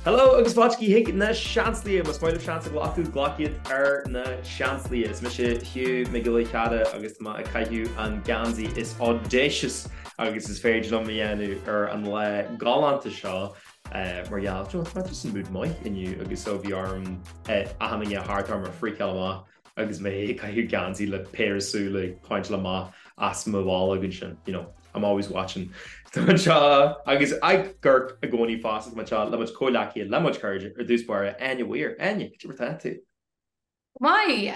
Hello agus fáilte chuig na Seansálaithe! Más maith libh seans a ghlacadh, glac iad ar na Seansálaithe. Is mise Hugh Mac Giolla Cheara agus tá mé ag caitheamh an geansaí is audacious agus is féidir liom a dhéanamh ar an lá galánta seo mar gheall, do you know, tá mé just in mood maith inniu agus so bhí orm achan duine thart orm a freakáil amach agus mé ag caitheamh geansaí le péire súl ag pointeáil amach as mo bholg ansin, you know, I'm always watching. Tá mé anseo agus ag amharc i gcónaí fosta, tá mé anseo le mo chuid comhghleacaithe, le mo chuid cairde, ar dtús báire, Áine Weir. Áine, cad é mar tá tú? Maith,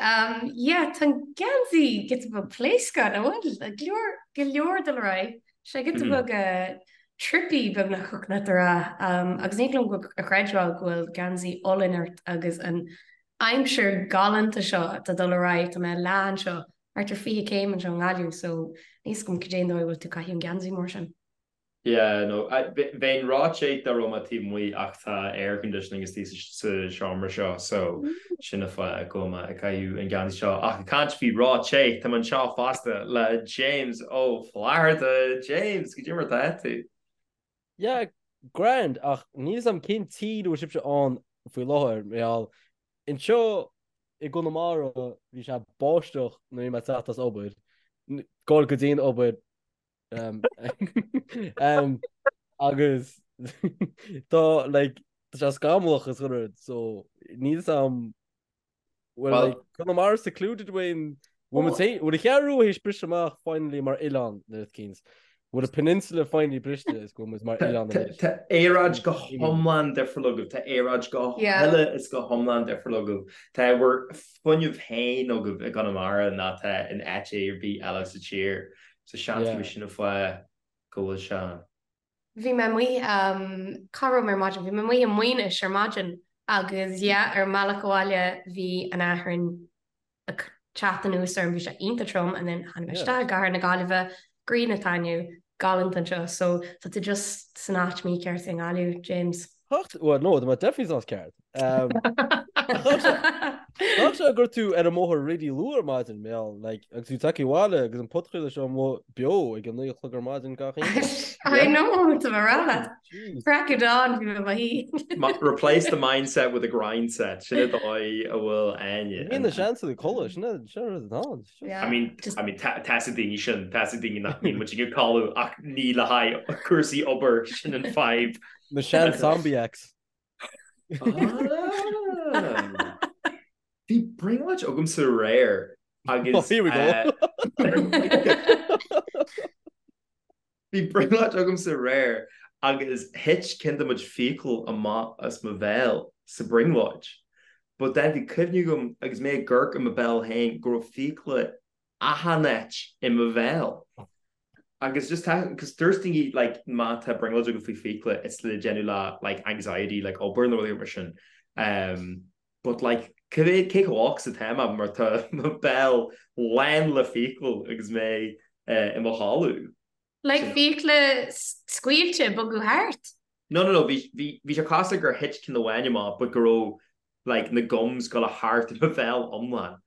yeah, tá an geansaí giota beag pléascach, an bhfuil? Go leor, go leor dul ar aghaidh. Sé giota beag trippy beagnach coconut a rá. Agus ní thig liom a chreidbheáil go bhfuil geansaí olainn ort agus an aimsir galánta seo atá dul ar aghaidh, tá mé leath anseo, thart ar 20 céim anseo i nGaillimh so níl 'fhios agam cad é an dóigh a bhfuil tú ag caitheamh an geansaí mór sin. Yeah, no, bheinn ró-the dá raibh mé taobh amuigh ach tá air conditioning istigh sa seomra seo so sin an fáth go bhfuil mé ag caitheamh an geansaí seo. Ach ag caint faoi ró-the, tá mé anseo fosta le James Ó Flatharta. James, cad é mar atá tú? Yeah, grand, ach níl 'fhios a'm cén tír a bhfuil sibhse ann faoi láthair, mar gheall anseo i gConamara bhí sé báisteach nuair a bhí mé ag teacht as obair, goil go dtí an obair, agus tá like tá sé scamallach is chuile rud, so níl 'fhios a'm Well, like, Conamara secluded when bhfuil bhfuil an Cheathrú Rua théis briseadh amach finally mar oileán na Cins. Bhfuil an peninsula finally briste is go bhfuil muid mar oileán anois. Tá aeráid go hiomlán difriúil agaibh, tá aeráid go huile is go hiomlán difriúil agaibh. Tá bhur fuinneamh féin agaibh i gConamara ná tá in áit ar bith eile sa tír. So seans gurb é sin an fáth go bhfuil sé. Bhí mé amuigh, cá raibh mé ar maidin? Bhí mé amuigh i Maínis ar maidin agus yeah, ar an mbealach abhaile bhí an fhearthainn ag teacht anuas orm, bhí sé iontach trom and then tháinig mé isteach i gcathair na Gaillimhe, grian ag taitneamh, galánta anseo so tá tú just san áit mícheart i nGaillimh, James. Well no, tá mé definitely san áit ceart. Tá sé gur tú ar an mbóthar really luath ar maidin, mar gheall, like, agus tú tagtha abhaile agus an podchraoladh seo amuigh beo ag an 9 a chlog ar maidin gach aon lá. I know, tá mé rá leat. Crack of dawn, bhí mé i mo shuí. Replace the mindset with a grindset. Sin an dóigh a bhfuil Áine. Bíonn na seans ag codladh, sin é sin rud atá ann. I mean, I mean, tá 's ag daoine sin, tá 's ag daoine nach mbíonn muid ag codladh ach ní le haghaidh cúrsaí obair, sin an fadhb. Na sean zombiacs. Bhí brionglóid agamsa aréir agus Oh, here we go. Bhí brionglóid agamsa aréir agus thit ceann de mo chuid fiacal amach as mo bhéal sa brionglóid. But then bhí cuimhne agam agus mé ag amharc i mo bhéal féin go raibh fiacla achan áit i mo bhéal. Agus just tá, cos dúirt daoine like má tá brionglóid agat faoi fiacla it's le déanamh le like anxiety like obair nó rudaí mar sin. Um, but like cé cé chomh olc is atá mé mar tá mo bhéal lán le fiacal agus mé uh, i mo chodladh. Like fiacla scaoilte bogadh thart? No no no bhí bhí bhí sé cosúil gur thit ceann amháin amach but go raibh like na gums ag gabháil thart i mo bhéal iomlán.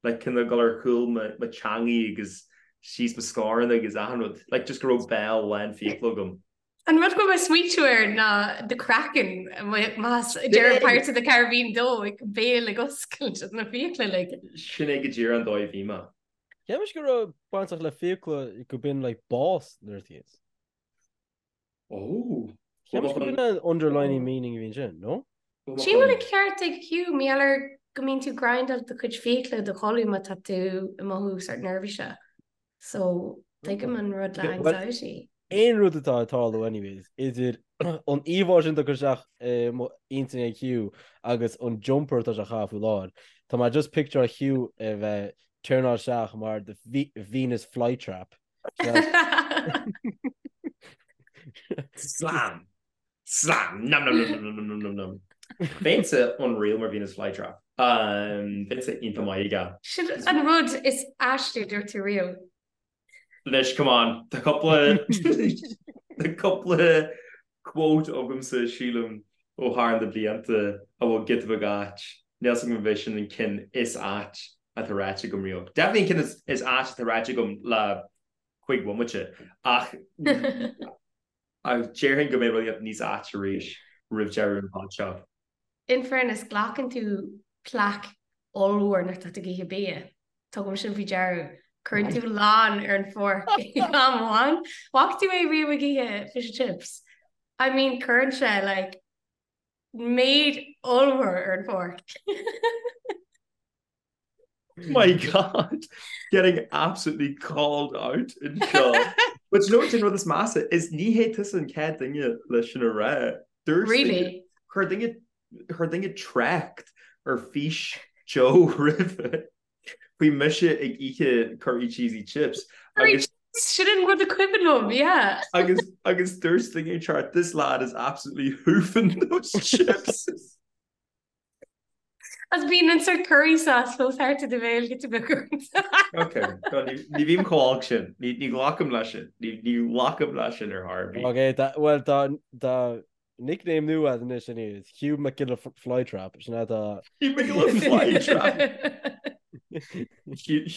like ceann ag dul ar chúl mo teangaidh agus síos mo scorna agus achan rud, like just go raibh béal lán fiacla agam. An rud go raibh mé ag smaointiú air ná the Kraken, más deireadh Pirates of the Caribbean dó, ag béal ag oscailt na fiacla like. Sin é go díreach an dóigh a bhí mé. Cheap mise go raibh bainteach le fiacla go b'in like bás nuair a thíos. Oh. Cheap mise go b'in an underlining meaning a bhí ansin, no? Sílim go bhfuil an ceart ag Hugh, mar gheall ar go mbíonn tú ag grindáil do chuid fiacla i do chodladh má tá tú ag mothú sort neirbhíseach. So, tuigim an rud le anxiety. Aon rud atá ag tarlú anyways, idir an íomhá sin atá curtha isteach i mo intinn ag Hugh agus an jumper atá sé a chaitheamh faoi láthair, tá mé just picture Hugh a bheith turnáil isteach mar the Venus flytrap. Slam! Slam! Nom nom nom nom nom nom nom. Bheinnse unreal mar Venus flytrap. Bheinnse iontach maith aige. Sin an rud is aistí a dúirt tú riamh. Anois, come on, tá cúpla tá cúpla quote agamsa sílim ó thar na blianta a bhfuil giota beag ait. Níl 's agam an é sin an ceann is ait atá ráite agam riamh. Definitely an ceann is ait atá ráite agam le 5 bhomaite ach déarfainn go mbeidh rudaí níos aite arís. roimh deireadh an pod seo. In fairness, glacann tú plaic ollmhór nuair atá tú ag ithe bia. Tugaim sin faoi deara. Cuireann tú a lán ar an fork ag am amháin. Bhfaca tú é riamh ag ithe fish and chips? I mean, cuireann sé like méid ollmhór ar an fork. My God, getting absolutely called out anseo. But you know what an rud is measa is ní hé tusa an chéad duine leis sin a rá. Dúirt Really? Chuir duine chuir duine trácht ar fís Joe roimhe faoi mise ag ithe curry cheesy chips agus Sin an rud a cuimhin liom, yeah. agus agus dúirt duine inteacht this lad is absolutely hoofing those chips. Agus bíonn an sort curry sauce fós thart i do bhéal giota beag uaireanta. Ok, ní bhím chomh holc sin. Ní ghlacaim leis sin. Ní ghlacaim leis sin ar chor ar bith. Ok, bhuel tá tá nickname nua agat anois anyway, is Hugh McGilla Flytrap, sin é tá. Hugh McGilla Flytrap.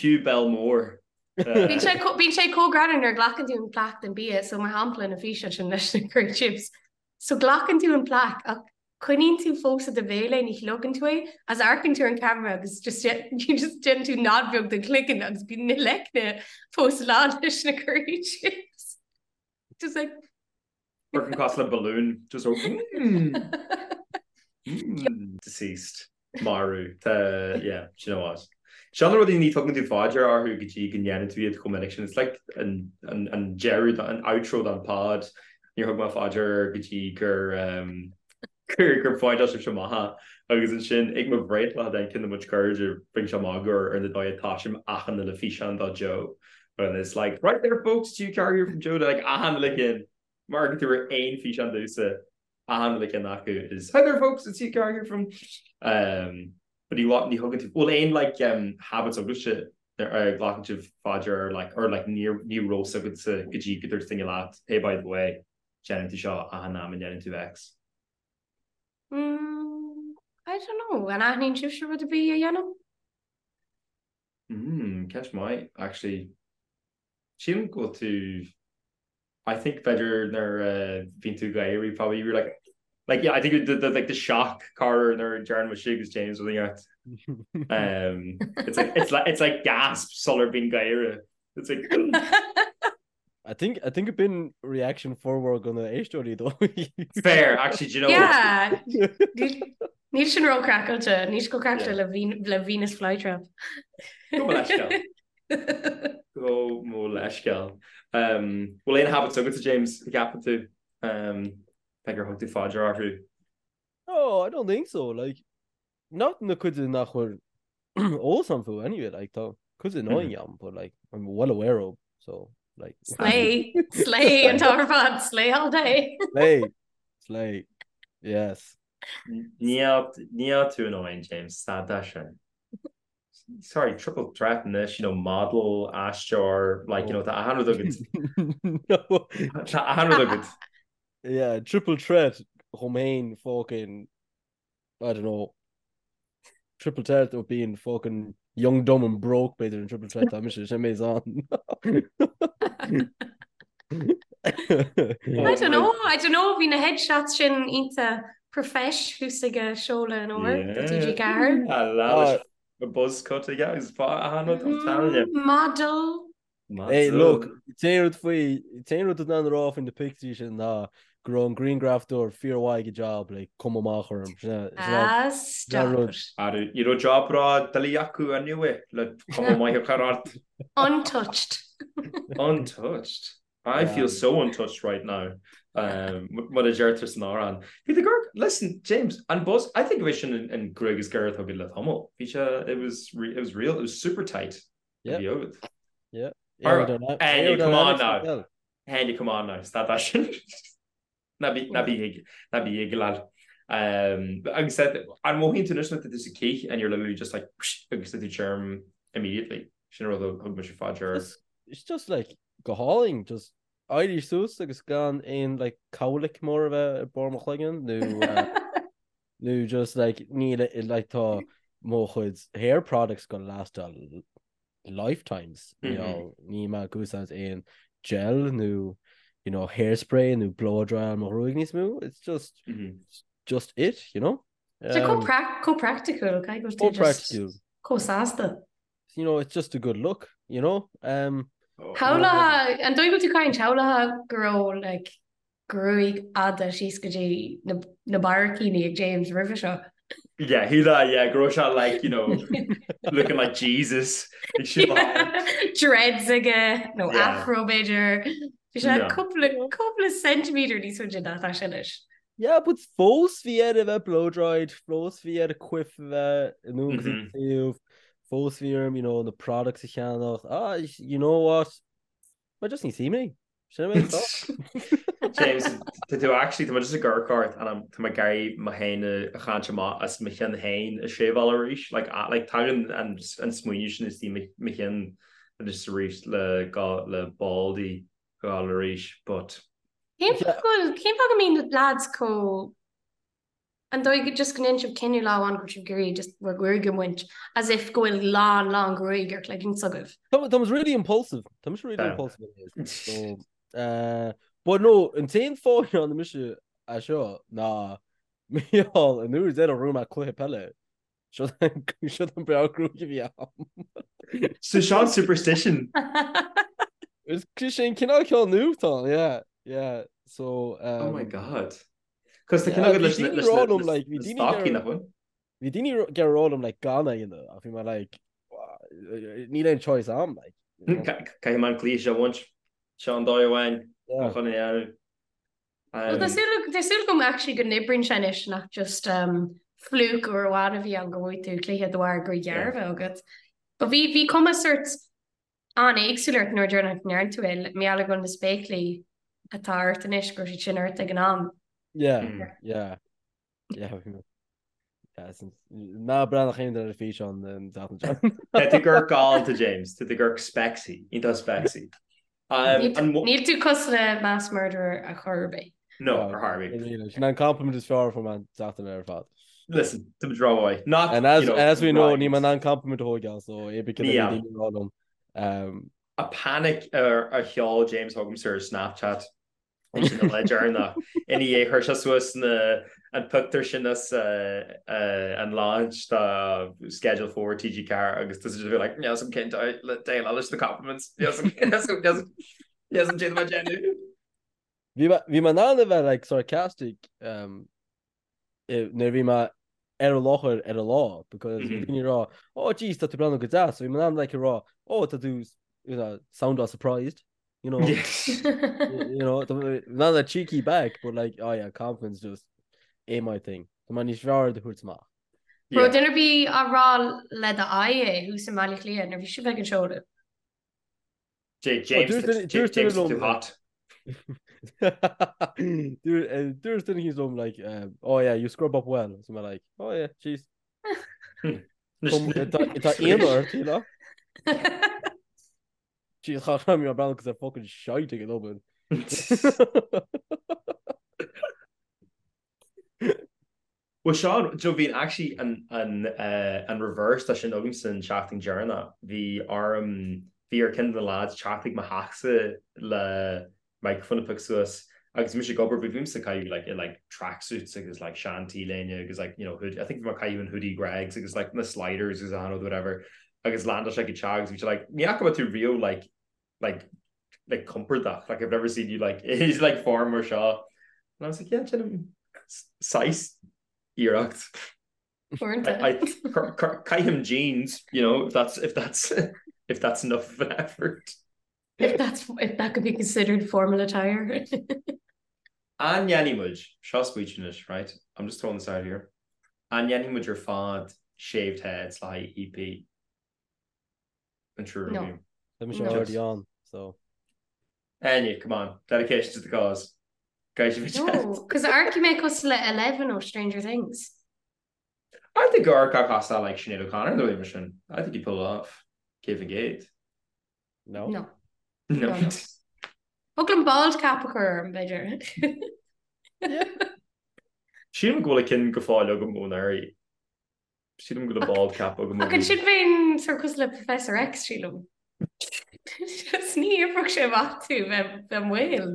Hugh Bellmore. Bíonn sé bíonn sé chomh greannmhar nuair a ghlacann tú an plaic den bia, so mar shampla na físeáin sin leis na curry chips. So glacann tú an plaic ach coinníonn tú fós i do bhéal é, ní shliogann tú é, agus amharcann tú ar an camera agus just you just déanann tú nod beag den chloigeann agus bíonn na leicne fós lán leis na curry chips. Just like... Working cosúil le balloon, just so mm, mm, deceased. Marú. Tá, yeah, do you know what? Seo na rudaí ní tugann tú faoi deara orthu go dtí go ndéanann tú iad chomh minic sin. It's like an, an, an deireadh, an outro don pod. Níor thug mé faoi deara go dtí gur, um, gur, gur phointeáil sibhse amach agus ansin ag mo bhreithlá den ceann de mo chuid cairde rinne sé magadh ar na dóigh a dtosaím achan uile físeán do Joe. And it's like, right there folks, Hugh Carr here from Joe, like achan uile ceann. Mar go tú ar aon físeán domhsa achan uile ceann acu is Hi there folks, it's Hugh Carr here from um, but ní ní thugann tú bhfuil aon like um, habits agaibhse ar a ghlacann sibh faoi deara like or like ní ní raibh a fhios agatsa go dtí go dúirt duine leat hey by the way déanann tú seo achan am a ndéanann tú X. Mm, I don't know, an aithníonn sibhse rud ar bith a dhéanaim? Mm, ceist maith actually. Sílim go bhfuil tú I think b'fhéidir nuair a bhíonn tú ag éirí probably you're like like yeah I think the, the like the shock corr nuair a deireann mise agus James rud inteacht. Um, it's like it's like it's like gasp sular bíonn gáire. It's like I think I think b'in reaction formhór go na éisteoirí dó. Fair actually do you know Yeah. Níl sin ró-chraiceáilte, níl sé chomh craiceáilte le le Venus flytrap. Go mo leithscéal. Go mo leithscéal. Bhfuil aon habits agatsa James a gceapann tú b'fhéidir gur thug tú faoi deara orthu? Oh, I don't think so. Like, not na cuid nach bhfuil eolas agam fúthu anyway, like, tá cuid annoying agam, but like, I'm well aware of, so, like... Slay! Slay an t-am ar fad! Slay all day! Slay! Slay. Yes. Níl níl tú annoying, James, stad de sin. Sorry, triple threat anois, you know, model, aisteoir, like, you know, tá achan rud agat. Tá achan rud agat. Yeah, triple threat dhom féin fucking, I don't know, triple threat of being fucking young, dumb and broke b'fhéidir an triple threat tá mise sin mé an. I don't know, I don't know, bhí na headshots sin iontach profesh thuas ag a seoladh an uair do TG4. Ah, a buzz cut aige agus achan rud I'm telling you. Model. Hey, look, t-aon rud faoi, t-aon rud atá in ann a rá faoi na pictiúirí sin ná go raibh an grianghrafadóir fíormhaith ag a job, like, cuma maith a chur orm. Sin é- sin é- Ah, sin é an stop rud. it. Arú, ní raibh job breá doiligh acu anyway le cuma maith a chur ort. Untouched. Untouched. I feel so untouched right now. Um, mar a deirtear san amhrán. Bhí the girl, listen, James, an buzz, I think bhí sin an gruaig is giorra atá agat le tamall. Bhí sé, it was, re, it was real, it was super tight. Yeah. Bhí agat. Yeah. Andy, come on now. Andy, come on now. Stop that sin. Ná bí ná bí ná bí ag lad. Um, agus an mothaíonn tú anois like there's a cích and you're literally just like agus tú tirim immediately. Sin rud a thug mise faoi deara. It's just like go hálainn just éirí suas agus gan aon like cowlick mór a bheith ar barr mo chloigeann nó uh, nó just like níl like tá mo chuid hair products go last a lifetimes you know, níl mé ag úsáid aon gel nó. you know, hairspray nó blow dry mo ghruaig níos mó. It's just, mm -hmm. just it, you know? Um, chomh praiticiúil, chomh praiticiúil. Chomh sásta. You know, it's just a good look, you know? Um, Shamhlófá, an dóigh go bhfuil tú caint, shamhlófá go raibh like, gruaig fhada síos go dtí na barraicíní ag James roimhe seo. Yeah, he that, yeah, go raibh sé like, you know, looking like Jesus. Dreads aige, nó afro b'fhéidir. Bhí sé cúpla cúpla centimetre níos faide ná tá sé anois. Yeah, but fós bhí air a bheith blow dried, fós bhí air quiff a bheith anonn go dtí an taobh, fós bhí orm, you know, na products a cheannach. Ah, you know what? Má just ní suim Sin é tá. James, tá tú actually, tá mé just ag amharc ort and I'm, tá mé ag iarraidh mé féin a chaint amach as mo cheann féin a shave-áil arís. Like, a, like tagann an, an smaoineamh sin istigh mo, mo cheann anois arís le go, le baldy a fháil arís, but. Cén fáth go bhfuil, cén fáth go mbíonn lads chomh An dóigh go just go ndéanann sibh cinneadh lá amháin go bhfuil sibh ag iarraidh just bhur ngruaig a bhaint as if go bhfuil lán lán gruaig ar chloigeann s'agaibh. Tá muid really impulsive. Tá mise really impulsive in So, uh, but no, an t-aon fáth a ndearna mise é seo ná mar gheall an uair deireanach a rinne mé cluiche peile. Seo an breá gruaig a bhí a'm. So seo an superstition. Is sé an cineál ceann nua tá, yeah, yeah. So, um, Oh my god. Cos tá cineál leis na stocaí nach bhfuil? Bhí daoine ag rá liom like gan é a dhéanamh ach bhí mé like níl aon choice a'm like. Caithfidh mé an cluiche seo a bhaint. Seo an dóigh amháin chun é a dhéanamh. Well tá súil tá súil agam actually go n-oibríonn sé anois nach just um, fluke uair amháin a bhí ann go bhfuair tú cluiche de bharr gruaig ghearr a bheith agat. But bhí bhí cuma sort an-éagsúil ort nuair deireanach a ndearna tú é, mar gheall go bhfuil na spéaclaí atá ort anois go raibh siad sin ort ag an am. Yeah, yeah, yeah. Ná breathnaigh aon duine ar an físeán an tseachtain seo. Tá tú ag amharc galánta James, tá tú ag amharc spexy, iontach spexy. Níl tú cosúil le mass murderer ar chor ar bith. No, ar chor ar bith. Sin an compliment is fearr a fuair mé an tseachtain ar fad. Listen, tá muid rómhaith. Not, And as, you know, as we know, níl mé in ann compliment a thógáil, so é be Ní liom. Um, A panic ar a sheol James chugamsa ar Snapchat ansin an lá deireanach. Ina dhiaidh chuir sé suas na an pictiúr sin as an launch do Schedule 4 TG4 agus tá sé like níl 'fhios a'm cén dóigh le déileáil leis na compliments. Níl 'fhios a'm níl 'fhios a'm cén dóigh déanamh. Bhí mé in ann a bheith like sarcastic um, nuair a bhí mé ar an láthair ar an lá because bhí daoine ag rá oh jeez tá tú breathnú go deas so bhí mé in ann like a rá oh tá tú you know, sound all surprised you know you know not that cheeky back but like oh yeah compliments just ain't my thing Tá mé níos fearr iad a thabhairt amach. Raibh duine ar bith á rá le d'aghaidh é thuas i mBaile Átha Cliath nuair a bhí sibh ag an seoladh. James, James, James too hot. Dúirt duine éicint liom like um, oh yeah you scrub up well so mé like oh yeah jeez Tá aon ort you know Jeez cha raibh mé breathnú cos fucking shite ag an obair. Well Seán, do bhí actually an an an reverse de sin agamsa an tseachtain dheireanach. Bhí orm, bhí ar ceann de na lads teacht chuig mo theachsa le microphone a phiocadh suas agus mise ag obair, bhí bhímse ag caitheamh like i like tracksuits agus like sean T-léine agus like you know hoodie, I think bhí mé ag caitheamh an hoodie Greggs agus like na sliders agus achan rud whatever agus landáil sé go teach agus bhí sé like ní fhaca mé tú riamh like like like compordach like I've never seen you like is like form mar seo and I was like yeah déanaim saghas iarracht caithim jeans you know if that's if that's if that's enough of an effort if that's if that could be considered formal attire An ndéanfaidh muid seo smaoineamh anois right I'm just throwing this out here An ndéanfaidh muid ar fad shaved heads le haghaidh EP An triúr No. againn. Tá mise already on, so. Áine, come on. Dedication to the cause. Guys, you've No, cos amharcfaidh mé cosúil le Eleven ó Stranger Things. I think gur cosúil like Sinead O'Connor the way sin. I think you pull it off. 100%. No. No. No. No, no. Thig liom bald cap a chur orm, b'fhéidir. Sílim go bhfuil ceann go fóill agam ón anuraidh. Sílim go bhfuil bald cap agam. Ach ansin bheinn sort cosúil le Professor X, sílim. Just ní oibreodh sé amach tú bheith maol.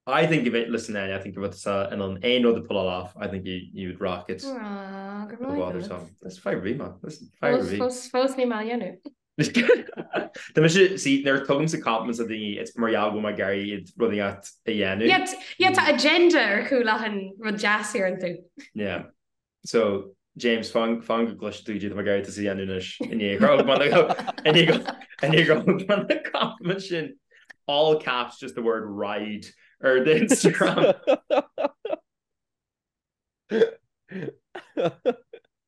I think if it, listen I think if it's uh, in an aon rud to pull it off, I think you, you would rock it. Ah, go No raibh bother, maith so agat. That's fine bhí man. Listen, fine Fós bhí. fós fós ní maith dhéanamh. Tá mise see nuair a tugaimse compliments do daoine it's mar gheall go bhfuil mé ag iarraidh iad rud inteacht a dhéanamh. Yeah, t- yeah, tá agenda ar chúl achan rud deas a deireann tú. Yeah. So James fan fan go gcloisfidh tú tá mé ag iarraidh tusa a dhéanamh anois i ndiaidh go raibh i ndiaidh go i ndiaidh go raibh na compliment sin all caps just the word ride ar the Instagram.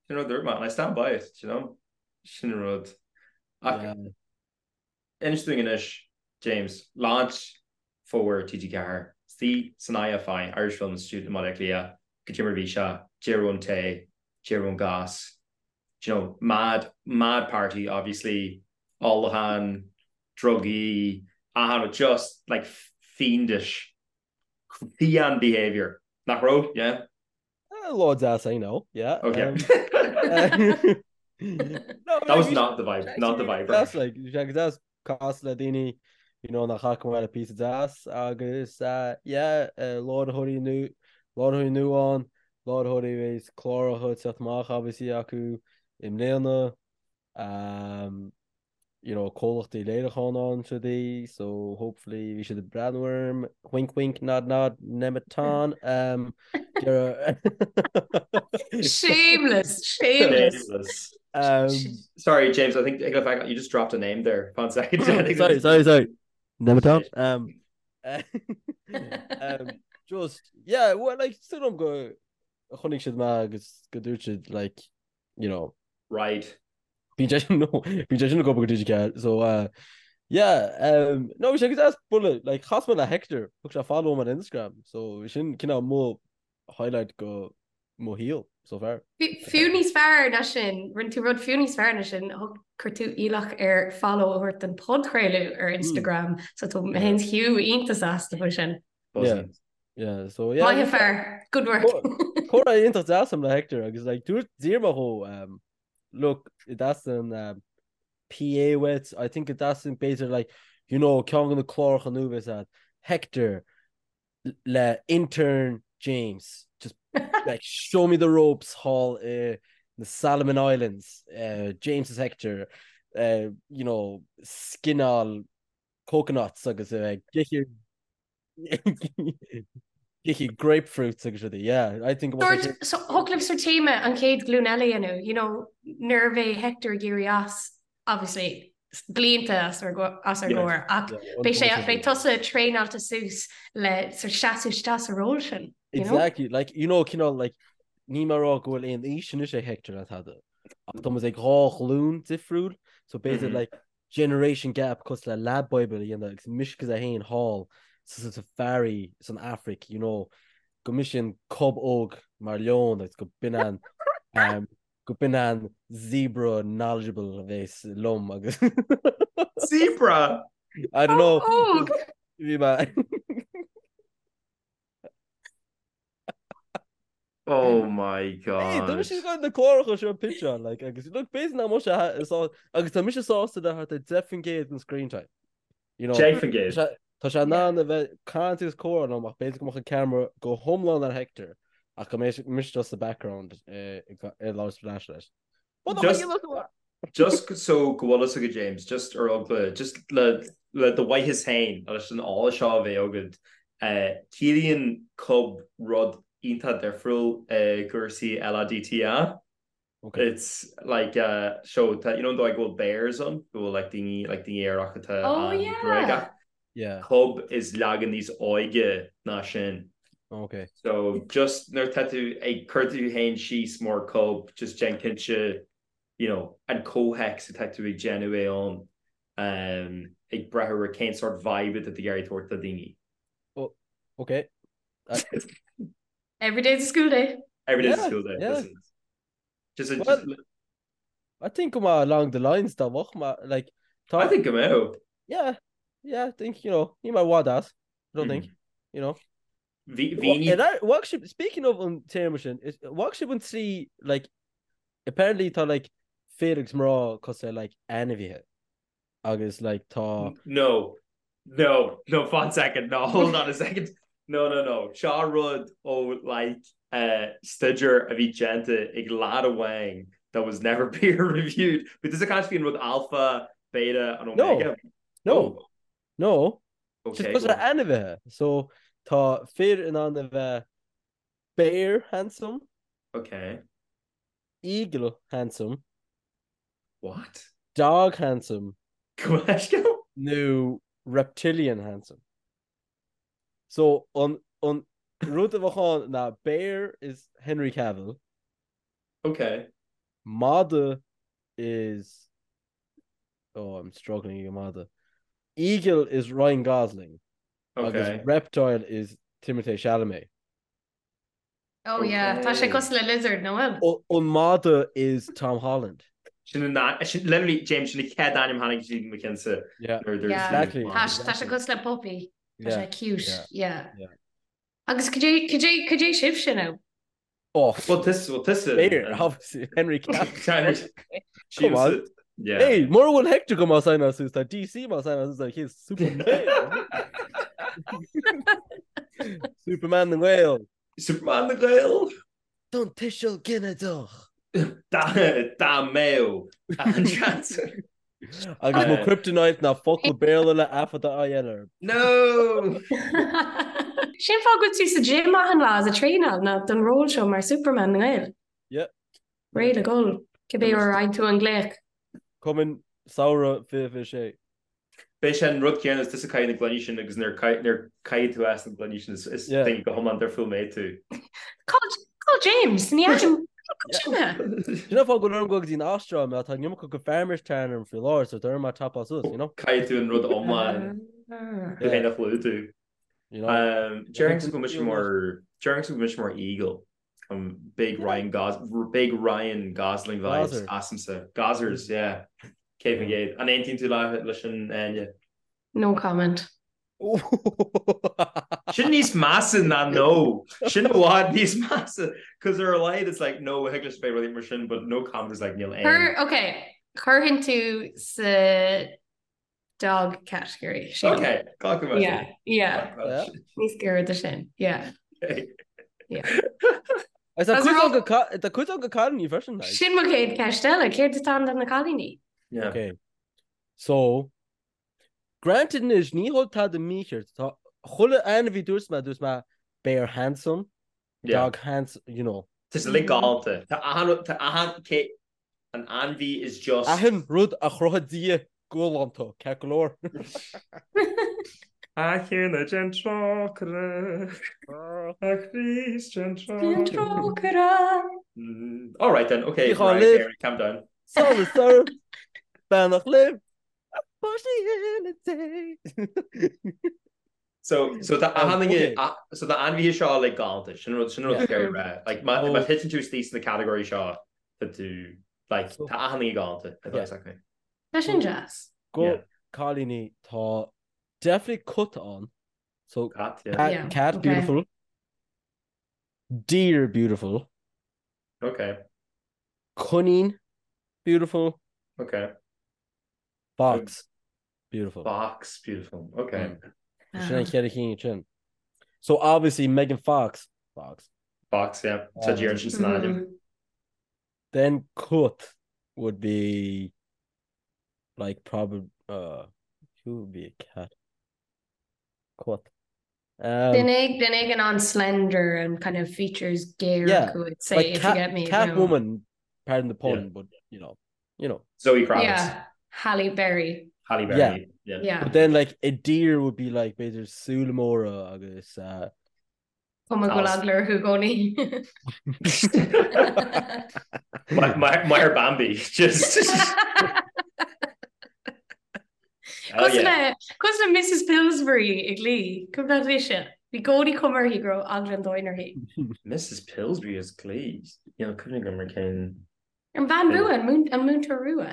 Sin rud dúirt mé and I stand by it, you know? Sin an rud. Ach Yeah. Inis dúinn anois, James, launch Fómhair TG4, istigh san IFI, Irish Film Institute i mBaile Átha Cliath, cad é mar a bhí sé, cad é raibh an tae, cad é raibh an gas, do you know, mad, mad party obviously, ólachán, drugaí, achan rud, just like fiendish, fian behaviour, nach raibh, yeah? Lá deas, I know, yeah. Okay. No, That was not the vibe, not the vibe. That's like, sé go deas casadh le daoine, you know, nach bhfaca mé le píosa deas agus uh, yeah, uh, láithreoirí nua, láithreoirí nua ann, láithreoirí a bheas cláracha ag teacht amach obviously acu i mbliana. Um, you know, comhlachtaí léiriúcháin ann rudaí, so hopefully bhí siad ag breathnú orm, wink wink, nod nod, Nemeton, um, Shameless, shameless. Shameless. um, Sorry, James, I think in fact you just dropped a name there. One second. sorry, sorry, sorry. Nemeton. Um, um, just, yeah, well, like, súil agam go chonaic siad mé agus go dúirt siad, like, you know. Right. Bíonn sé sin, no, bíonn sé sin ag obair go TG4, so, uh, yeah, um, no, bhí sé go deas bualadh, like, chas mé le Hector, thug sé follow dom ar Instagram, so bhí sin cineál mo highlight go mo shaol so far. Fiú níos fearr ná sin, rinne tú rud fiú níos fearr ná sin, thug, chuir tú iallach air follow a thabhairt don podchraoladh ar Instagram, so tá mé féin 's Hugh iontach sásta faoi sin. Yeah. Yeah, so yeah. Maith an fear, good work. Comhrá iontach deas agam le Hector agus like dúirt d'iarr mé dhó um, look an dteastaíonn um, PA uait, I think an dteastaíonn b'fhéidir like you know ceann de na cláracha nua bheas agat Hector le intern James just like show me the ropes thall i na Solomon Islands uh, James is Hector uh, you know skinnáil coconuts agus uh, ag ithe grapefruits agus rudaí, yeah, I think Dúirt, so thig libh sort téama an chéad ghlúin eile a dhéanamh, you know, nuair a bheidh Hector ag éirí as, obviously, blianta as ár as ár gcomhair, ach beidh sé, beidh tusa traenáilte suas le sort seasamh isteach sa ról sin, you know? Exactly, like, you know, cineál, like, níl mé ag rá go bhfuil aon aois anois ag Hector ná tada, ach tá muid ag dhá ghlúin difriúil, so b'fhéidir, like, generation gap cosúil le Lad Bible a dhéanamh agus mise agus é féin thall sa safari san Afraic, you know, go mise an cub óg mar leon agus go b'in an um, go b'in an zebra knowledgeable a bheas liom agus Zebra! I don't know. Óg! Bhí mé Oh my Hey, God. tá mise ag na cláracha seo pitcháil, like, agus look, b'fhéidir nach mbeadh sé sá- agus tá mise sásta le thart ar 10% den screen time. You know, 10%. Tá sé- tá sé in ann a bheith caint agus comhrá liom ach b'fhéidir go mbeadh an ceamara go hiomlán ar Hector ach go mbeidh mise just sa background eh, ag ag labhairt leis leis. But Just- just Just so go bhfuil fhios agat James, just ar eagla, just le le do mhaitheas féin leis an eolas seo a bheith agat, eh, ciallaíonn cub rud iontach difriúil i gcúrsaí LADTA. Okay. It's like uh, so tá, you know an dóigh go bhfuil bears ann, go bhfuil like daoine like daoine aerach atá Oh, an yeah. gruagach. Yeah. Cub is leagan níos óige ná sin. Okay. So just nuair atá tú ag cur tú féin síos mar cub, just déan cinnte you know, an comhthéacs atá tú ag déanamh é ann, um, ag breathnú ar cén sórt vibe atá tú ag iarraidh tabhairt do dhaoine. Oh, okay. Every day's a school day. Every day's a Yeah, school day. yeah. Listen. Just, a, Well, just I think go mbeadh along the lines dá mbeadh mé, like, tá, I think go mbeadh. yeah, yeah, I think, you know, níl mé i bhfad as, I don't think, you know. Bhí, bhí, Well, bhfaca sibh, speaking of an téarma sin, is- bhfaca sibh an trí, like, apparently tá, like, fir agus mná cosúil le, like, ainmhithe. agus like tá. No, no, no, fan second, no, hold on a second. No, no, no, seo rud ó like uh, staidéar a bhí déanta ag lad amháin that was never peer reviewed. But tusa ag caint faoin rud alpha, beta and omega. No, no, oh. no. Okay, Just ainmhithe. So tá fir in ann a bheith bear handsome. Okay. Eagle handsome. What? Dog handsome. Leithscéal? Nó reptilian handsome. So an an rud a bheadh ann ná bear is Henry Cavill. Okay. Madadh is oh I'm struggling ag an madadh. Eagle is Ryan Gosling. Okay. Agus reptile is Timothée Chalamet. Oh yeah, tá sé cosúil le lizard, nó bhfuil? An madadh is Tom Holland. Sin an sin literally James sin an chéad ainm tháinig sí mo chinnse. Yeah. Yeah. Exactly. Tá tá sé cosúil le puppy. Tá sé cute. Yeah. Yeah. Agus cad é cad é cad é sibhse nó? Oh. Well tusa well tusa. Bear, obviously Henry Cavill. Come on. Yeah. Hey, mura bhfuil Hector go más ain suas tá DC más ain suas chéad Superman. Superman na nGael. Superman na nGael. Don tuiseal ginideach. Dá mbeadh an seans. Agus mo kryptonite ná focal Béarla le a fada á dhéanamh. No! Sin fáth go bhfuil tú sa gym achan lá is ag traenáil ná don ról seo mar Superman na nGael. Yep. Réidh le gol, cibé uair a fhaigheann tú an glaoch. Coming samhradh 2026. Beidh sé an rud céanna is tusa ag caitheamh na gloiní sin agus nuair nuair caithfidh tú as na gloiní sin is duine go hiomlán difriúil mé tú. Call James, ní fheicim sin é. Sin an fáth go bhfuil orm dul go dtí an Astráil mar tá an iomarca go farmer's tan orm faoi láthair so tá orm é topáil suas, you know? Caithfidh tú an rud iomlán tú féin a chlúdú. You know? Déarfainnse go bhfuil mise mar déarfainnse go bhfuil mise mar eagle. Um, big Ryan Gos big Ryan Gosling vibes asamsa. Gozzers, yeah. 100%. An aontaíonn tú le leis sin Áine? No comment. Sin níos measa ná no. Sin i bhfad níos measa. Cos ar a laghad it's like no thig leis bheith rudaí mar sin but no comment is like níl aon. Cuir, okay, cuirfinn tú sa dog category. Sin. Okay, glacfaidh mé Yeah, sin. yeah. Yeah. Níos giorra do sin. Yeah. Okay. Yeah. Is tá As cuid a ann go ca- tá cuid ann go cailíní freisin, like. Sin mo chéad ceist eile, céard atá ann do na cailíní? Yeah. Okay. So, granted anois, ní bhfuil tada mícheart. Tá chuile ainmhí dúirt mé, dúirt mé bear handsome, Yeah. dog handsome, you know. Tá sé uilig galánta. Tá achan tá achan cé an ainmhí is just. Achan rud a chruthaigh Dia galánta, ceart go leor. A Thiarna déan trócaire, a Chríost déan Déan trócaire. All right then, okay, Mícheál Mariah libh. Carey, calm down. Solas oraibh, beannacht libh, a pháistí uile Dé. So, so tá Um, achan okay. duine, so tá ainmhithe seo uilig galánta, sin rud, sin rud Yeah. scary rá. Like, má, Oh. má thiteann tú istigh sna category seo, tá tú, like, So- tá achan duine galánta, I Yeah. exactly. Tá sin deas. Go Yeah. cailíní tá definitely cat ann. So Cat, yeah. cat, Yeah, cat okay. beautiful. Deer beautiful. Okay, Coinín beautiful. okay. Fox beautiful. Fox, beautiful. Okay. Mm. Sin an ceithre cinn sin. So obviously Megan Fox, Fox. Fox, yeah. Tá deer sin san ainm. Mm. Then cat would be like probably uh who would be a cat? Cat. Um, Duine duine éigin an-slender and kind of features géar Yeah, acu, I'd say, like if you cat get me, you cat know. woman, pardon the Yeah. pun, but you know, you know. Zoe Kravitz. Yeah, Halle Berry. Halle Yeah. Berry. Yeah. Yeah. But then like a deer would be like b'fhéidir súile móra agus uh Cuma go bhfuil Alice. eagla orthu i gcónaí. My, my, my Bambi. Just. Hell Cosúil yeah. le cosúil le Mrs Pillsbury i Glee, Cuimhin leat ise? Bhí i gcónaí cuma uirthi go raibh eagla an domhain uirthi. Mrs Pillsbury as Glee. Níl cuimhne agam ar cén. An bhean rua, an múin- an múinteoir rua.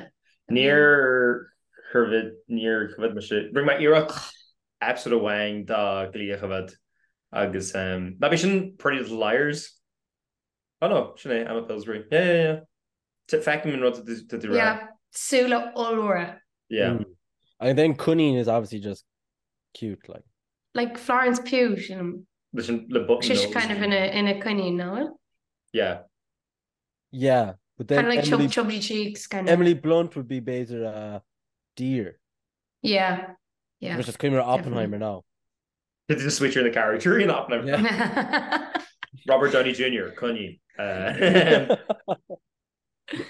Níor choimhéad, níor choimhéad mise. Rinne mé iarracht episode amháin de Glee a choimhéad agus um, ná bhí sin Pretty Little Liars. Oh no, sin é, Emma Pillsbury. Yeah, yeah, yeah. Feicim an rud a tú rá. Yeah, súile ollmhóra. Yeah. Mm. And then coinín is obviously just cute like. Like Florence Pugh sin. Leis an le button nose. She's kind of ina ina coinín nach bhfuil? Yeah. Yeah, but then Kind of like Emily, chub, chubby cheeks kind of. Emily Blunt would be b'fhéidir a deer. Yeah. Yeah. Which is cuimhne Oppenheimer now. Did you switch her the character in Oppenheimer? Yeah. Robert Downey Jr. Coinín. Uh,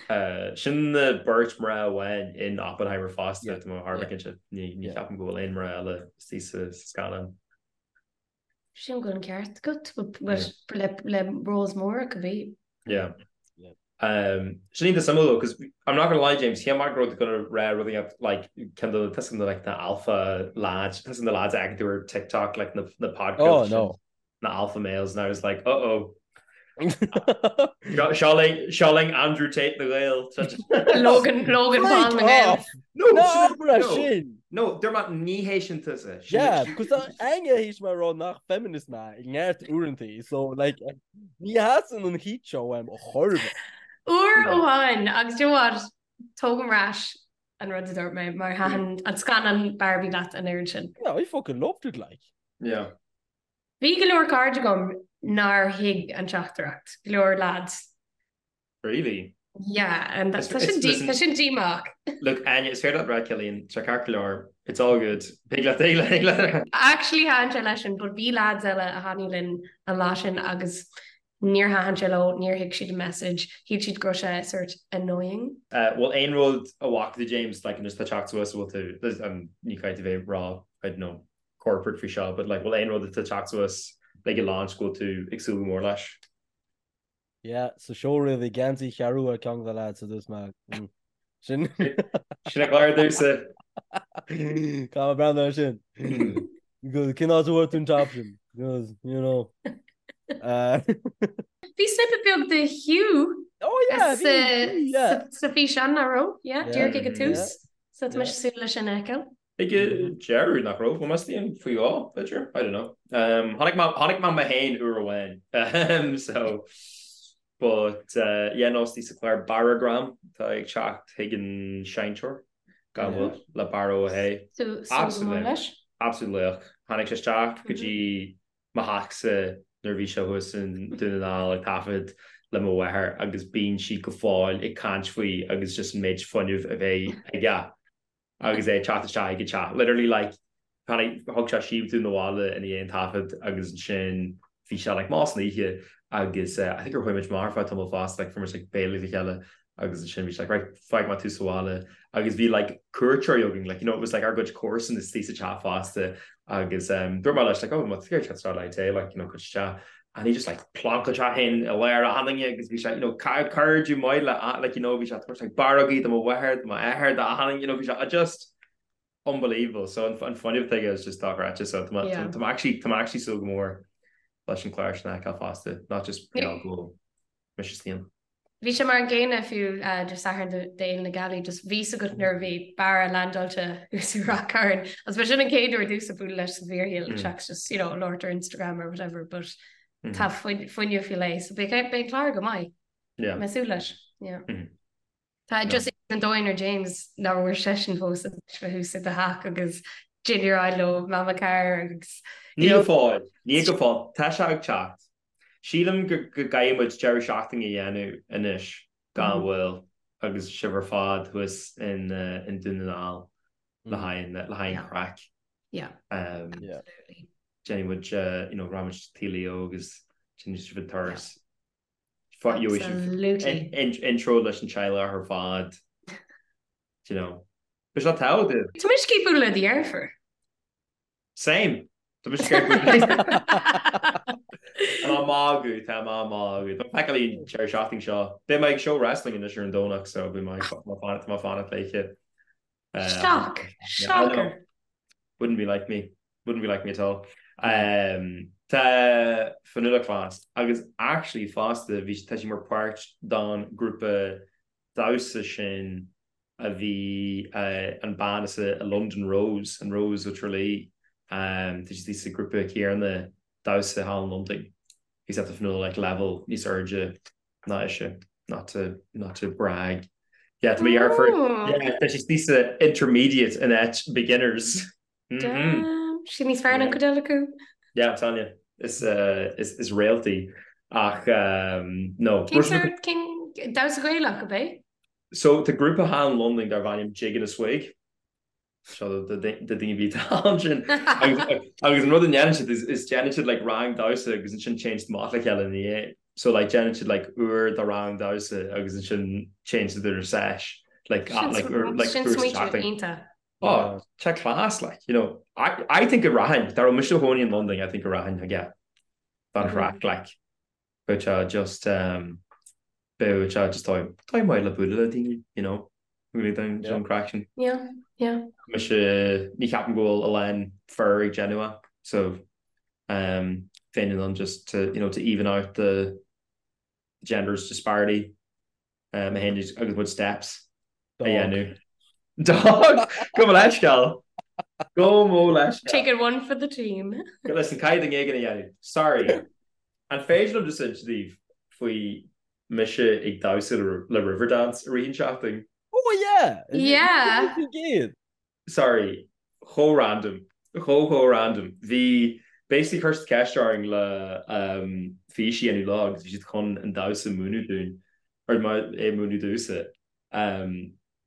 uh, sin na beirt mná amháin in Oppenheimer fosta tá mé thar a bheith cinnte ní cheapaim go bhfuil aon mná eile istigh sa scannán. Sin go an ceart agat but le roles móra cibé. Yeah. Um, sin iontach suimiúil though, because I'm not gonna lie James, shíl mé go raibh tú gonna rá rud éigin like ceann de tusa na like na alpha lads, tusa na lads a fheiceann tú ar TikTok like na na podcasts. Oh no. Na alpha males and I was like, uh-oh. Seo linn Andrew Tate na nGael. Logan Logan Paul na nGael. No, no, sin. No, deir mé ní hé sin tusa. Yeah, because Áine théis mé a rá nach feminist mé i neart uaireanta, so like ní theastaíonn an heat seo uaim ar chor ar bith. Uair amháin agus do you know what, tógaim ar ais an rud a dúirt mé mar thaitin an scannán Barbie leat an oiread sin. Yeah, I fucking loved it like. Yeah. Bhí go leor cairde agam nár thuig an teachtaireacht, go leor lads. Really? Yeah, and tá sin díomách. Look, Áine, is féidir leat rá Cillian, tá ceart go leor, it's all good. Thig leat, thig leat, thig leat. Actually thaitin sé leisean, but bhí lads eile a tháinig linn an lá sin agus níor thaitin sé leo, níor thuig siad an message, shíl siad go raibh sé sort annoying. Bhfuil aon rud a bhfaca tú James, like anois tá teacht suas, bhfuil tú, ní caithfidh tú bheith rá, I don't know, corporate faoi seo, but like bhfuil aon rud atá teacht suas like i launch go bhfuil tú ag súil go mór leis? Yeah, sa showreel bhí geansaí Cheathrú ar ceann de na lads so dúirt mé mm, sin Sin an clár domhsa. Caithfidh mé breathnú air sin. Because cén áit a bhfuair tú an top sin? Because, you know. Uh, Bhí snippet beag de Hugh oh yeah, bhí, bhí, yeah. sa físeán nach raibh, yeah, Yeah. díreach ag an tús. Yeah. So tá mise ag súil leis sin a fheiceáil. Ag an deireadh nach raibh mé istigh faoi dhó, b'fhéidir? I don't know. Um, tháinig mé tháinig mé mé féin uair amháin. Um, so, but uh, yeah, no, istigh sa chlár Barragram tá ag teacht chuig an seinnteoir gan mhoill le Barra Ó hAodha. So, súil go mór leis. Absolute laoch. Tháinig sé isteach go dtí mo theachsa nuair a bhí sé thuas in Dún na nGall ag taifead le mo mháthair agus bíonn sí go fóill ag caint faoi agus just an méid fuinnimh a bheidh aige. agus é ag teacht isteach ag an teach. Literally like tháinig, thug sé síob dúinn abhaile i ndiaidh an taifead agus ansin bhí sé like mall san oíche agus eh, I think gur chuaigh muid amach ar feadh tamall fosta like fuair muid like béile le chéile agus ansin bhí sé like right fágfaidh mé tú sa bhaile agus bhí like cuairteoirí againn like you know it was like ár gcuid comharsan istigh sa teach fosta agus um, dúirt mé leis like oh má tá tú ag teacht isteach le tae like you know cuir isteach and he just like plonkáil sé féin i lár achan duine agus bhí sé you know cairdiúil maith le like you know bhí sé ag tabhairt like barrógaí do mo mháthair do m'athair do achan duine you know bhí sé just unbelievable so an an fuinneamh atá aige is just dochreidte so tá yeah. tá actually tá actually súil go mór leis an clár sin a fheiceáil fosta not just you know go mise Stian. Bhí sé mar an gcéanna fiú Dé Sathairn d'Fhéile na Gealaí, just bhí 's agat nuair a bhí Barra landáilte thuas i Ráth Cairn agus ba sin an chéad uair domhsa bualadh leis sa bhfíorshaol seachas just you know labhairt ar Instagram or whatever but tá fuinneamh faoi leith so beidh beidh an clár go maith. Yeah. Mé ag súil leis. Yeah. Tá just ionadh an domhain ar James nach bhfuair seisean fós an deis bheith thuas i do theach agus dinnéar a fháil ó Mama Carr agus Ní go fóill, ní go fóill, tá sé ag teacht. Sílim go gcaithfidh muid deireadh seachtaine a dhéanamh anois gan mhoill agus sibh ar fad thuas in Dún na nGall le haghaidh an chraic. Déanfaidh muid, you know, rachaidh muid Tigh Leo agus déanfaidh sibh an turas. Absolutely. Intro leis an teaghlach ar fad. You know. Beidh sé tábhachtach. Tá mise ag iarraidh bualadh le do dheirfiúr. Same! Tá mise ag iarraidh Tá mé ag magadh, tá mé ag magadh. Tá mé ag feiceáil an deireadh seachtaine seo. Beidh mé ag seó wrestling anois ar an Domhnach so beidh mé ag fanacht léithe. Shock! Shocker! Wouldn't be like me. Wouldn't be like me at all. Tá Fionnuala class agus actually fosta bhí tá sí mar páirt don grúpa damhsa sin a bhí an bean as Londain Rose, an Rose ó Tralee, tá sí sa grúpa céanna damhsa thall in Londain. Except tá Fionnuala like level níos airde ná ise, not to, not to brag. Yeah, tá mo dheirfiúr, yeah, tá sí istigh sa intermediate in áit beginners. Damn, sí níos fearr ná cuid eile acu. Yeah, I'm telling you, is, uh, is, is réalt í. Ach, um, no. Cén sórt, cén, damhsa Gaelach, ab é? So, tá grúpa thall in Londain darb ainm Jig and a Swig. Seo do daoine a bhí ansin. Agus an rud a ndéanann siad is, is déanann siad like rang damhsa agus ansin téann siad amach le chéile ina dhiaidh. So like déanann siad like uair de rang damhsa agus ansin téann siad ar sesh. Like, Sin like, sm- like sin uair sa smaointe tseachtain. iontach. Oh, tá class like, you know. I, I think go rachainn, dá raibh mise i mo chónaí in Londain, I think go rachainn aige. Don chraic like. Bheadh sé just, um, bheadh sé just dóigh, dóigh maith le bualadh le daoine, you know. Really don, don chraic sin. Yeah, yeah. Mise, ní cheapaim go bhfuil a lán fir ag déanamh é, so, um, bheinn in ann just to, you know, to even out the genders disparity. Mé féin agus muid steps a dhéanamh. Dog! Gabh mo leithscéal! Gabh mo leithscéal! Taking one for the team. Listen, caithfidh duine éigin a dhéanamh. Sorry. An féidir liom just inse daoibh faoi mise ag damhsa le Riverdance i rith an tseachtain? Oh yeah! Yeah! Sorry, chomh random, chomh chomh random. Bhí, basically chuir siad ceist orainn le fís a dhéanamh leo agus bhí siad chun an damhsa a múineadh dúinn, or é a múineadh domhsa.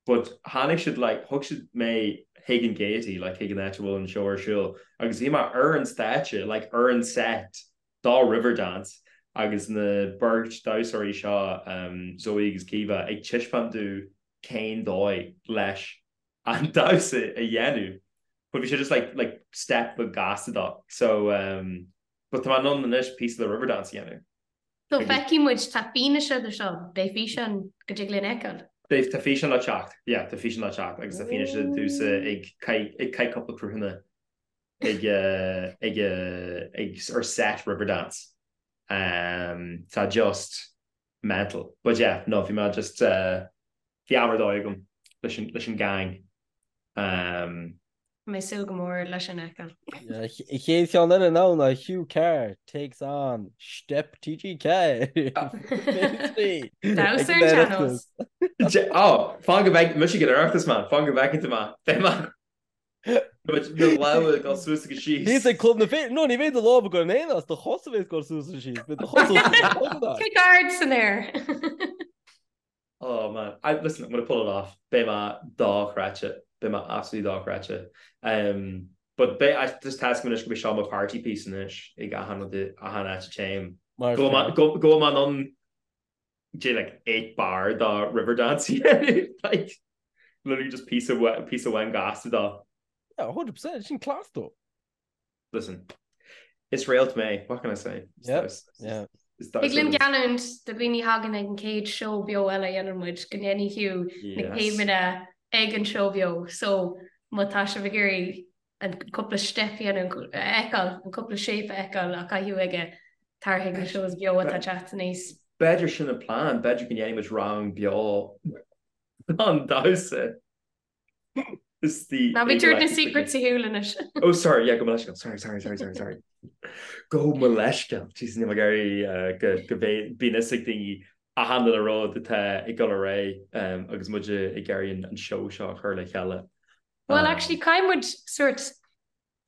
But tháinig siad like, thug siad mé chuig an Gaiety, like chuig an áit a bhfuil an seó ar siúl, agus bhí mé ar an stáitse, like ar an set do Riverdance agus na beirt damhsóirí seo, Zoe agus Caoimhe, ag taispeáint domh cén dóigh leis an damhsa a dhéanamh but bhí sé just like like step beag gasta dó so um but tá mé in ann anois píosa de Riverdance a dhéanamh. So feicfidh muid, tá fianaise de seo, beidh físeán go dtig linn a fheiceáil. Beidh, tá físeán le teacht, yeah, tá físeán le teacht agus tá fianaise domhsa ag ag caitheamh cúpla cruthanna ag ag ag ar set Riverdance. Um tá just mental. But yeah, no, bhí mé just uh, bhí am ar dóigh agam leis an, leis an gang. Um, Mé ag súil go mór leis sin a fheiceáil. Chéad cheann eile ná ná Hugh Carr takes on Step TG4. Damhsa ar an sean-nós. Oh, fan go bhfeicfidh mise ag an Oireachtas man, fan go bhfeicfidh tú mé. Beidh mé Mo lámha ag dul suas agus síos. Níos ag Club na Féile. No, ní bheidh do lámha ag dul in aon áit, do chosa a bheas ag dul suas agus síos. Beidh do chosa os cionn na Kick ard san aer. Oh man, I, listen, I'm gonna pull it off. Beidh mé dochreidte. Beidh mé absolutely dochreidte. Um, but beidh, I just tá a fhios agam anois go mbeidh seo mo party piece anois ag achan rud, achan áit a téim. Mar Go bhfuil mé- go go bhfuil mé in ann do like 8 bar de Riverdance like literally just piece of piece amháin gasta dó. Yeah, 100%, sin class dó. Listen, is réalt mé, what can I say? Yeah, yeah. Thig linn geallúint do dhaoine a thagann ag an chéad seó beo eile a dhéanann muid go ndéanfaidh Hugh na céimeanna ag an seó beo so má tá sibh ag iarraidh an cúpla step a dhéanamh a fheiceáil, an cúpla shape a fheiceáil á caitheamh aige tar chuig na shows beo atá ag teacht aníos. B'fhéidir sin an plean, b'fhéidir go ndéanfaidh muid rang beo don damhsa. Ná bí ag tabhairt na secrets a shiúl anois. Oh sorry, yeah, gabh mo leithscéal, sorry, sorry, sorry, sorry, sorry. Gabh mo leithscéal, Jesus, níl mé ag iarraidh go go bhíonn fhios ag daoine achan uile rud atá ag dul ar aghaidh agus muid ag iarraidh an seó seo a chur le chéile. Well actually caithfidh muid sort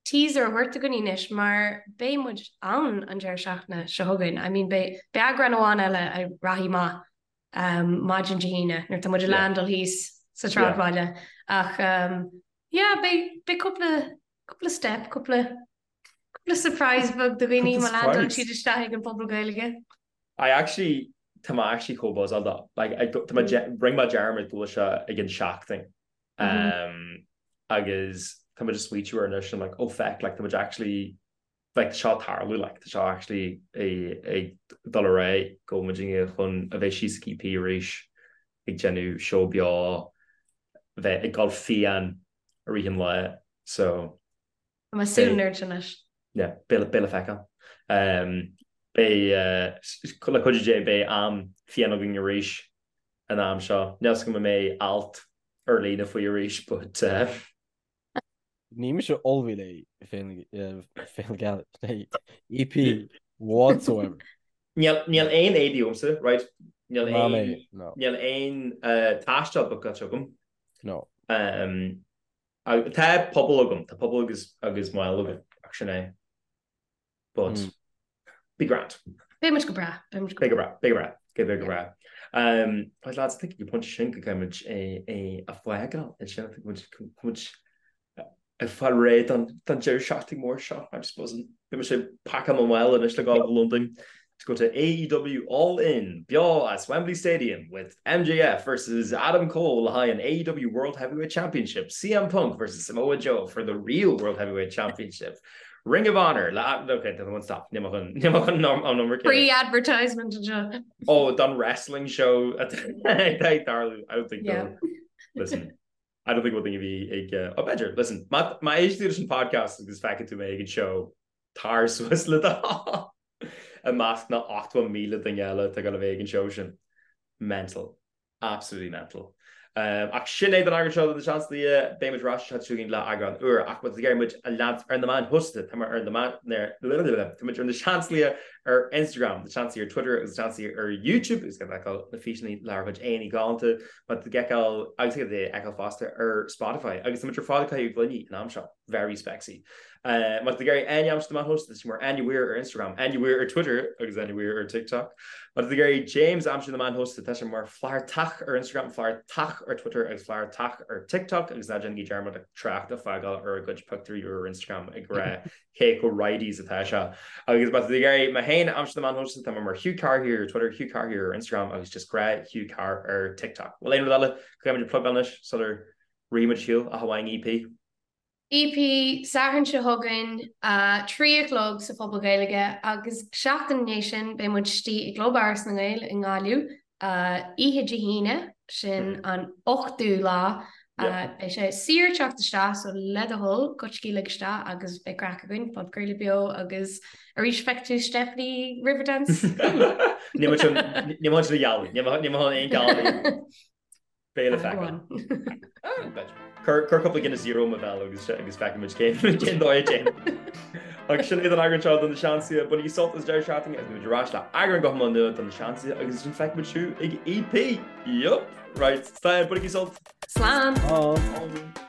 teaser a thabhairt do dhaoine anois mar beidh muid ann an deireadh seachtaine seo chugainn. I mean beidh beidh eagrán amháin eile a rachaidh amach um, maidin Dé hAoine nuair tá muid ag landáil thíos sa tsráidbhaile ach um, yeah, beidh beidh cúpla cúpla step, cúpla cúpla surprise beag do dhaoine má landálann siad isteach ag an Phuball Gaeilge. I actually tá mé actually chomh buzzed dó. Like I tá mé rinne mé dearmad go bhfuil sé ag an seachtain. Um, agus tá mé just smaoitiú air anois and like oh feck like tá muid actually like tá seo ag tarlú like tá seo actually ag dul ar aghaidh go bhfuil muid chun a bheith síos ag EP arís ag déanamh seó beo a bheith ag dul fiáin i rith an lae so Tá mé ag súil an oiread sin leis. Yeah, beidh le feiceáil. Beidh, le cuidiú Dé, beidh am fiáin againn arís an am seo. Níl 'fhios agam an mbeidh alt ar líne faoi arís but. Níl mise ullmhaithe le Féile na Gealaí, EP whatsoever. Níl aon éadaí agamsa, right? Níl aon níl aon taisteal bookáilte agam. No. Tá puball agam, tá puball agus agus mála agam ach sin é. But mm. be grand. Beidh muid go breá. Beidh muid go breá. Beidh go breá. Beidh go breá. Um, right lads, I think ag an bpointe sin go gcaithfimid é é a fhágáil ansin I think muid muid ag fáil réidh don deireadh seachtaine mór seo, I suppose. Beidh mise ag pacáil mo mhála anois le gabháil go Londain to go to AEW All In beo as Wembley Stadium with MJF versus Adam Cole le haghaidh an AEW World Heavyweight Championship, CM Punk versus Samoa Joe for the real World Heavyweight Championship, Ring of Honor le okay, that one stop. Níl mé chun níl mé chun an iomarca. Free advertisement anseo. Oh, don wrestling show atá ag tarlú. I don't think yeah. Listen. I don't think bhfuil duine a bhí ag oh b'fhéidir, listen, má má éist tú leis an podcast agus feicfidh tú mé ag an show tar suas le do i measc na 80,000 duine eile atá ag gabháil a bheith ag an show sin. Mental. Absolutely mental. Um, ach sin é don eagrán seo de na Seansálaithe, beidh muid ar ais an tseachtain seo chugainn le eagrán úr ach má tá tú ag iarraidh muid a leanstan ar na meáin shóisialta, tá muid ar na meáin tá muid ar na Seansálaithe ar Instagram, na Seansálaithe ar Twitter agus na Seansálaithe ar YouTube agus ag feiceáil na físeanna lenár gcuid aíonna galánta Má tá tú ag feiceáil agus ag feiceáil fosta ar Spotify agus tá muid ar fad ag caitheamh gloiní an am seo. Very spexy. Má tá tú ag iarraidh Áine a aimsiú ar na meáin shóisialta, tá sí mar Áine Weir ar Instagram, Áine Weir ar Twitter agus Áine Weir ar TikTok. Má tá tú ag iarraidh James a aimsiú ar na meáin shóisialta, tá sé mar Flathartach ar Instagram, Flathartach ar Twitter agus Flathartach ar TikTok agus ná déanaigí dearmad ach trácht a fhágáil ar a gcuid pictiúirí ar Instagram ag rá cé chomh righties atá sé. Agus má tá tú ag iarraidh mé féin a aimsiú ar na meáin shóisialta, tá mé mar Hugh Carr here ar Twitter, Hugh Carr here ar Instagram agus just gnáth Hugh Carr ar TikTok. Bhfuil aon rud eile go gcaithfimid a phlugáil anois sular rithimid ar shiúl ach amháin EP? EP, Satharn seo chugainn, 3 a chlog sa Phuball Gaeilge agus seachtain i ndiaidh sin beidh muid istigh i gClub Áras na nGael i nGaillimh. Oíche Dé hAoine, sin an 8ú lá, beidh sé saor teacht isteach so le do thoil, goitsigí uilig isteach agus beidh craic againn, podchraoladh beo agus arís feicfidh tú Stephanie Riverdance. Níl muid chun a ghealladh, níl mé chun aon ghealladh. Beidh le feiceáil. Cuir cúpla Guinness Zero i mo bhéal agus agus feicfidh muid cén cén dóigh a dtéann. Agus sin é don eagrán seo de na Seansálaithe. Bainigí sult as deireadh seachtaine agus beidh muid ar ais le eagrán go hiomlán nua de na Seansálaithe agus ansin feicfidh muid sibh ag EP. Yup! Right. Slán, bainigí sult! Slán! Slán!